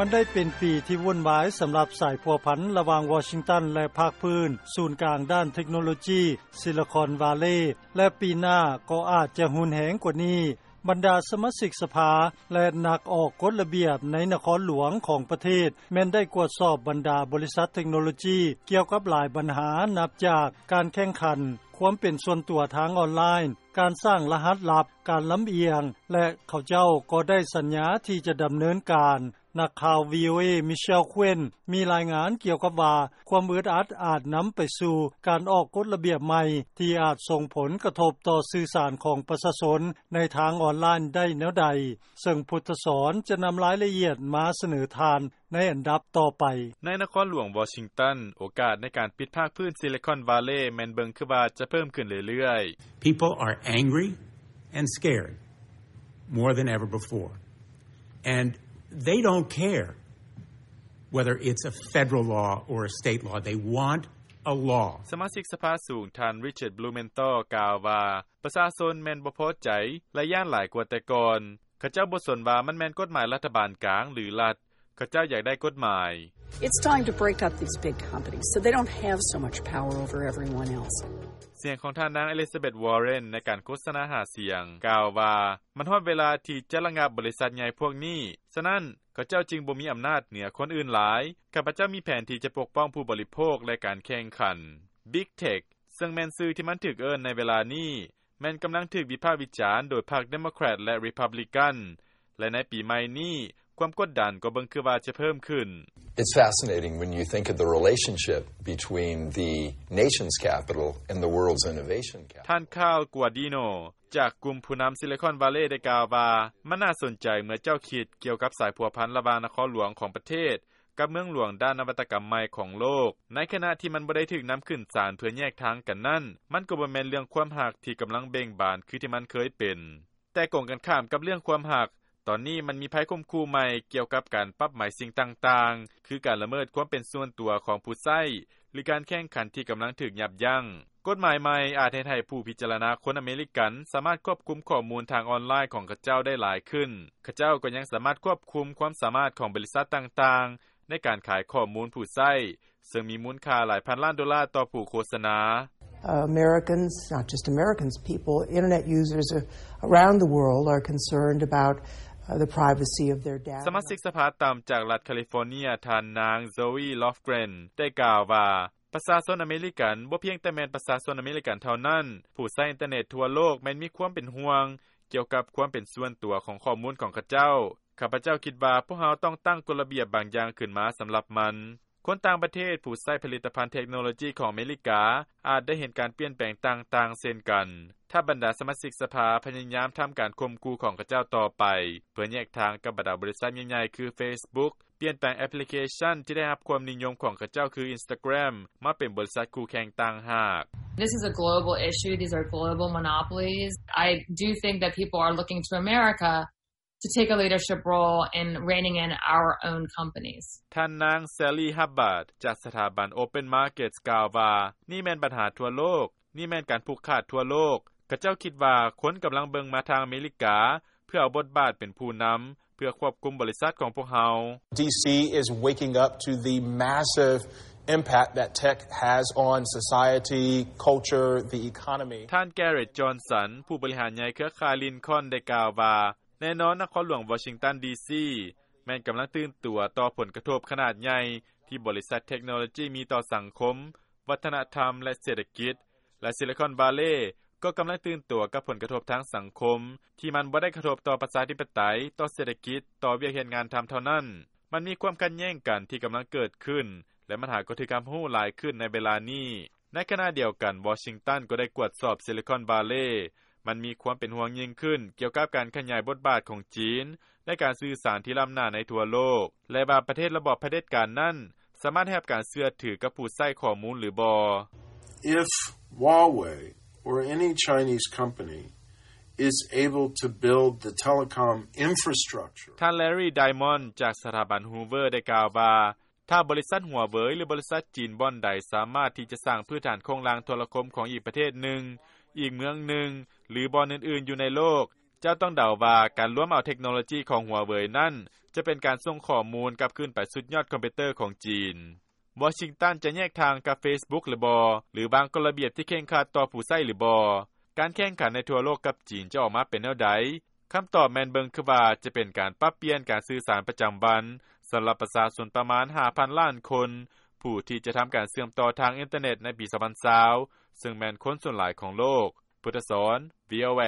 ມັນໄດ້ເປັນປີທີ່ວຸ່ນວາຍສຳລັບສາຍພົວພັນລະຫວ່າງວໍຊິງຕັນ ແລະພາກພື້ນສູນກາງດ້ານເທັກໂນໂລຈີ Silicon Valley ແລະປີໜ້າກໍອາດຈະຮຸນແຮງກວ່ານີ້. ບັນດາສະມາຊິກສະພາ ແລະນັກອອກກົດລະບຽບໃນນະຄອນຫຼວງຂອງປະເທດ ແມ່ນໄດ້ກວດສອບບັນດາບໍລິສັດເທັກໂນໂລຈີ ກ່ຽວກັບຫຼາຍບັນຫາ ນັບຈາກການແຂ່ງຂັນ, ຄວາມເປັນສ່ວນຕົວທາງອອນລາຍ, ການສ້າງລະຫັດລັບ, ການລຳອຽງ ແລະເຂົາເຈົ້າກໍໄດ້ສັນຍາທີ່ຈະດຳເນີນການ. ນັກຂ່າວ VOA Michelle Quinn ມີລາຍງານກ່ຽວກັບວ່າ ຄວາມອຶດອັດອາດນຳໄປສູ່ການອອກກົດລະບຽບໃໝ່ ທີ່ອາດສົ່ງຜົນກະທົບຕໍ່ສື່ສານຂອງປະຊາຊົນໃນທາງອອນລາຍໄດ້ແນວໃດ, ເຊິ່ງພຸດທະສອນຈະນຳລາຍລະອຽດມາສະເໜີທ່ານໃນອັນດັບຕໍ່ໄປ. ໃນນະຄອນຫຼວງວໍຊິງຕັນ, ໂອກາດໃນການປິດພາກພື້ນ Silicon Valley ແມ່ນເບິ່ງຄືວ່າຈະເພີ່ມຂຶ້ນເລື້ອຍໆ. People are angry and scared more than ever before. And they don't care whether it's a federal law or a state law. They want a law. ສະມາຊິກສະພາສູງ ທ່ານ Richard Blumenthal ກ່າວວ່າ ປະຊາຊົນແມ່ນບໍ່ພໍໃຈ ແລະ ຢ້ານຫຼາຍກວ່າແຕ່ກ່ອນ. ເຂົາເຈົ້າບໍ່ສົນວ່າມັນແມ່ນກົດໝາຍລັດຖະບານກາງ ຫຼື ລັດ. ເຂົາເຈົ້າຢາກໄດ້ກົດໝາຍ. It's time to break up these big companies so they don't have so much power over everyone else. ສຽງຂອງທ່ານນາງ Elizabeth Warren ໃນການໂຄສະນາຫາສຽງ ກ່າວວ່າ ມັນຮອດເວລາທີ່ຈະລະງັບບໍລິສັດໃຫຍ່ພວກນີ້, ສະນັ້ນ ເຂົາເຈົ້າຈຶ່ງບໍ່ມີອຳນາດເໜືອຄົນອື່ນຫຼາຍ. ຂ້າພະເຈົ້າມີແຜນທີ່ຈະປົກປ້ອງຜູ້ບໍລິໂພກ ແລະ ການແຂ່ງຂັນ. Big Tech ເຊິ່ງແມ່ນຊື່ທີ່ມັນຖືກເອີ້ນໃນເວລານີ້, ແມ່ນກຳລັງຖືກວິພາກວິຈານໂດຍພັກ Democrat ແລະ Republican ແລະ ໃນປີໃໝ່ນີ້ ຄວາມກົດດັນກໍເບິ່ງຄືວ່າຈະເພີ່ມຂຶ້ນ. It's fascinating when you think of the relationship between the nation's capital and the world's innovation capital. ທ່ານ Carl Guadino ຈາກກຸ່ມຜູ້ນຳ Silicon Valley ໄດ້ກ່າວວ່າ ມັນໜ້າສົນໃຈເມື່ອເຈົ້າຄິດກ່ຽວກັບສາຍພົວພັນລະຫວ່າງນະຄອນຫຼວງຂອງປະເທດ ກັບເມືອງຫຼວງດ້ານນະວັດຕະກຳໃໝ່ຂອງໂລກ. ໃນຂະນະທີ່ມັນບໍ່ໄດ້ຖືກນຳຂຶ້ນສານເພື່ອແຍກທາງກັນນັ້ນ, ມັນກໍບໍ່ແມ່ນເລື່ອງຄວາມຮັກທີ່ກຳລັງເບັ່ງບານຄືທີ່ມັນເຄີຍເປັນ. ແຕ່ກົງກັນຂ້າມກັບເລື່ອງຄວາມຮັກ, ຕອນນີ້ມັນມີໄພຂົ່ມຂູ່ໃໝ່ກ່ຽວກັບການປັບໃໝສິ່ງຕ່າງໆ, ຄືການລະເມີດຄວາມເປັນສ່ວນຕົວຂອງຜູ້ໃຊ້ ຫຼື ການແຂ່ງຂັນທີ່ກຳລັງຖືກຍັບຢັ້ງ. ກົດໝາຍໃໝ່ອາດເຮັດໃຫ້ຜູ້ພິຈາລະນາຄົນອາເມລິກັນສາມາດຄວບຄຸມຂໍ້ມູນທາງອອນລາຍຂອງເຂົາເຈົ້າໄດ້ຫຼາຍຂຶ້ນ. ເຂົາເຈົ້າກໍຍັງສາມາດຄວບຄຸມຄວາມສາມາດຂອງບໍລິສັດຕ່າງໆ ໃນການຂາຍຂໍ້ມູນຜູ້ໃຊ້, ເຊິ່ງມີມູນຄ່າຫຼາຍພັນລ້ານໂດລາຕໍ່ຜູ້ໂຄສະນາ. Americans, not just Americans, people, internet users around the world are concerned about, uh, the privacy of their data. ສະມາຊິກສະພາຕ່ຳຈາກລັດຄາລິຟໍເນຍ ທ່ານນາງ Zoe Lofgren ໄດ້ກ່າວວ່າ ປະຊາຊົນອາເມລິກັນບໍ່ພຽງແຕ່ແມ່ນປະຊາຊົນອາເມລິກັນເທົ່ານັ້ນ, ຜູ້ໃຊ້ອິນເຕີເນັດທົ່ວໂລກແມ່ນມີຄວາມເປັນຫ່ວງກ່ຽວກັບຄວາມເປັນສ່ວນຕົວຂອງຂໍ້ມູນຂອງເຂົາເຈົ້າ. ຂ້າພະເຈົ້າຄິດວ່າພວກເຮົາຕ້ອງຕັ້ງກົດລະບຽບບາງຢ່າງຂຶ້ນມາສຳລັບມັນ. ຄົນຕ່າງປະເທດຜູ້ໃຊ້ຜະລິດຕະພັນເທັກໂນໂລຈີຂອງອາເມລິກາອາດໄດ້ເຫັນການປ່ຽນແປງຕ່າງໆເຊັ່ນກັນ. ຖ້າບັນດາສະມາຊິກສະພາພະຍາຍາມທຳການຂົ່ມຂູ່ຂອງເຂົາເຈົ້າຕໍ່ໄປ ເພື່ອແຍກທາງກັບບັນດາບໍລິສັດໃຫຍ່ໆຄື Facebook, ປ່ຽນແປງແອັບພລິເຄຊັນທີ່ໄດ້ຮັບຄວາມນິຍົມຂອງເຂົາເຈົ້າຄື Instagram ມາເປັນບໍລິສັດຄູ່ແຂ່ງຕ່າງຫາກ. This is a global issue. These are global monopolies. I do think that people are looking to America to take a leadership role in reining in our own companies. ທ່ານນາງ Sally Hubbard ຈາກສະຖາບັນ Open Markets ກ່າວວ່າ ນີ້ແມ່ນບັນຫາທົ່ວໂລກ, ນີ້ແມ່ນການຜູກຂາດທົ່ວໂລກ. ເຂົາເຈົ້າຄິດວ່າຄົນກຳລັງເບິ່ງມາທາງອາເມລິກາ ເພື່ອເອົາບົດບາດເປັນຜູ້ນຳ ເພື່ອຄວບຄຸມບໍລິສັດຂອງພວກເຮົາ. D C is waking up to the massive impact that tech has on society, culture, the economy. ທ່ານ Garrett Johnson ຜູ້ບໍລິຫານໃຫຍ່ເຄືອຂ່າຍ Lincoln ໄດ້ກ່າວວ່າ ແນ່ນອນນະຄອນຫຼວງວໍຊິງຕັນ ດີຊີ ແມ່ນກຳລັງຕື່ນຕົວຕໍ່ຜົນກະທົບຂະໜາດໃຫຍ່ທີ່ບໍລິສັດເທັກໂນໂລຈີມີຕໍ່ສັງຄົມ, ວັດທະນະທຳ ແລະ ເສດຖະກິດ ແລະ Silicon Valley ກໍກຳລັງຕື່ນຕົວກັບຜົນກະທົບທາງສັງຄົມ ທີ່ມັນບໍ່ໄດ້ກະທົບຕໍ່ປະຊາທິປະໄຕ, ຕໍ່ເສດຖະກິດ, ຕໍ່ວຽກເຮັດງານທຳເທົ່ານັ້ນ. ມັນມີຄວາມຂັດແຍ່ງກັນທີ່ກຳລັງເກີດຂຶ້ນ ແລະ ບັນຫາກໍຖືກຮັບຮູ້ຫຼາຍຂຶ້ນໃນເວລານີ້. ໃນຂະນະດຽວກັນ, ວໍຊິງຕັນກໍໄດ້ກວດສອບ Silicon Valley. ມັນມີຄວາມເປັນຫ່ວງຍິ່ງຂຶ້ນກ່ຽວກັບການຂະຫຍາຍບົດບາດຂອງຈີນໃນການສື່ສານທີ່ລ້ຳໜ້າໃນທົ່ວໂລກ ແລະ ວ່າປະເທດລະບອບຜະເດັດການນັ້ນສາມາດໃຫ້ຮັບການເຊື່ອຖືກັບຜູ້ໃຊ້ຂໍ້ມູນຫຼືບໍ່. If Huawei or any Chinese company is able to build the telecom infrastructure. ທ່ານ Larry Diamond ຈາກສະຖາບັນ Hoover ໄດ້ກ່າວວ່າ ຖ້າບໍລິສັດ Huawei ຫຼື ບໍລິສັດຈີນບ່ອນໃດສາມາດທີ່ຈະສ້າງພື້ນຖານໂຄງລ່າງໂທລະຄົມຂອງອີກປະເທດໜຶ່ງ, ອີກເມືອງໜຶ່ງ ຫຼື ບ່ອນອື່ນໆຢູ່ໃນໂລກ ເຈົ້າຕ້ອງເດົາວ່າ ການລວມເອົາເທັກໂນໂລຈີ ຂອງຫົວເຫວີຍນັ້ນ ຈະເປັນການສົ່ງຂໍ້ມູນ ກັບຄືນໄປສູ່ຍອດຄອມພິວເຕີ ຂອງຈີນ. ວໍຊິງຕັນ ຈະແຍກທາງກັບ Facebook ຫຼືບໍ່ ຫຼືວາງກົດລະບຽບ ທີ່ເຄັ່ງຄັດຕໍ່ຜູ້ໃຊ້ຫຼືບໍ່? ການແຂ່ງຂັນໃນທົ່ວໂລກ ກັບຈີນ ຈະອອກມາເປັນແນວໃດ? ຄຳຕອບແມ່ນເບິ່ງຄືວ່າ ຈະເປັນການປັບປ່ຽນ ການສື່ສານປະຈຳວັນ ສຳລັບປະຊາຊົນປະມານ 5 ພັນລ້ານຄົນ ຜູ້ທີ່ຈະທຳການເຊື່ອມຕໍ່ທາງອິນເຕີເນັດ ໃນປີ 2020 ຊຶ່ງແມ່ນຄົນສ່ວນຫຼາຍຂອງໂລກ. ພຸດທະສອນ VOA.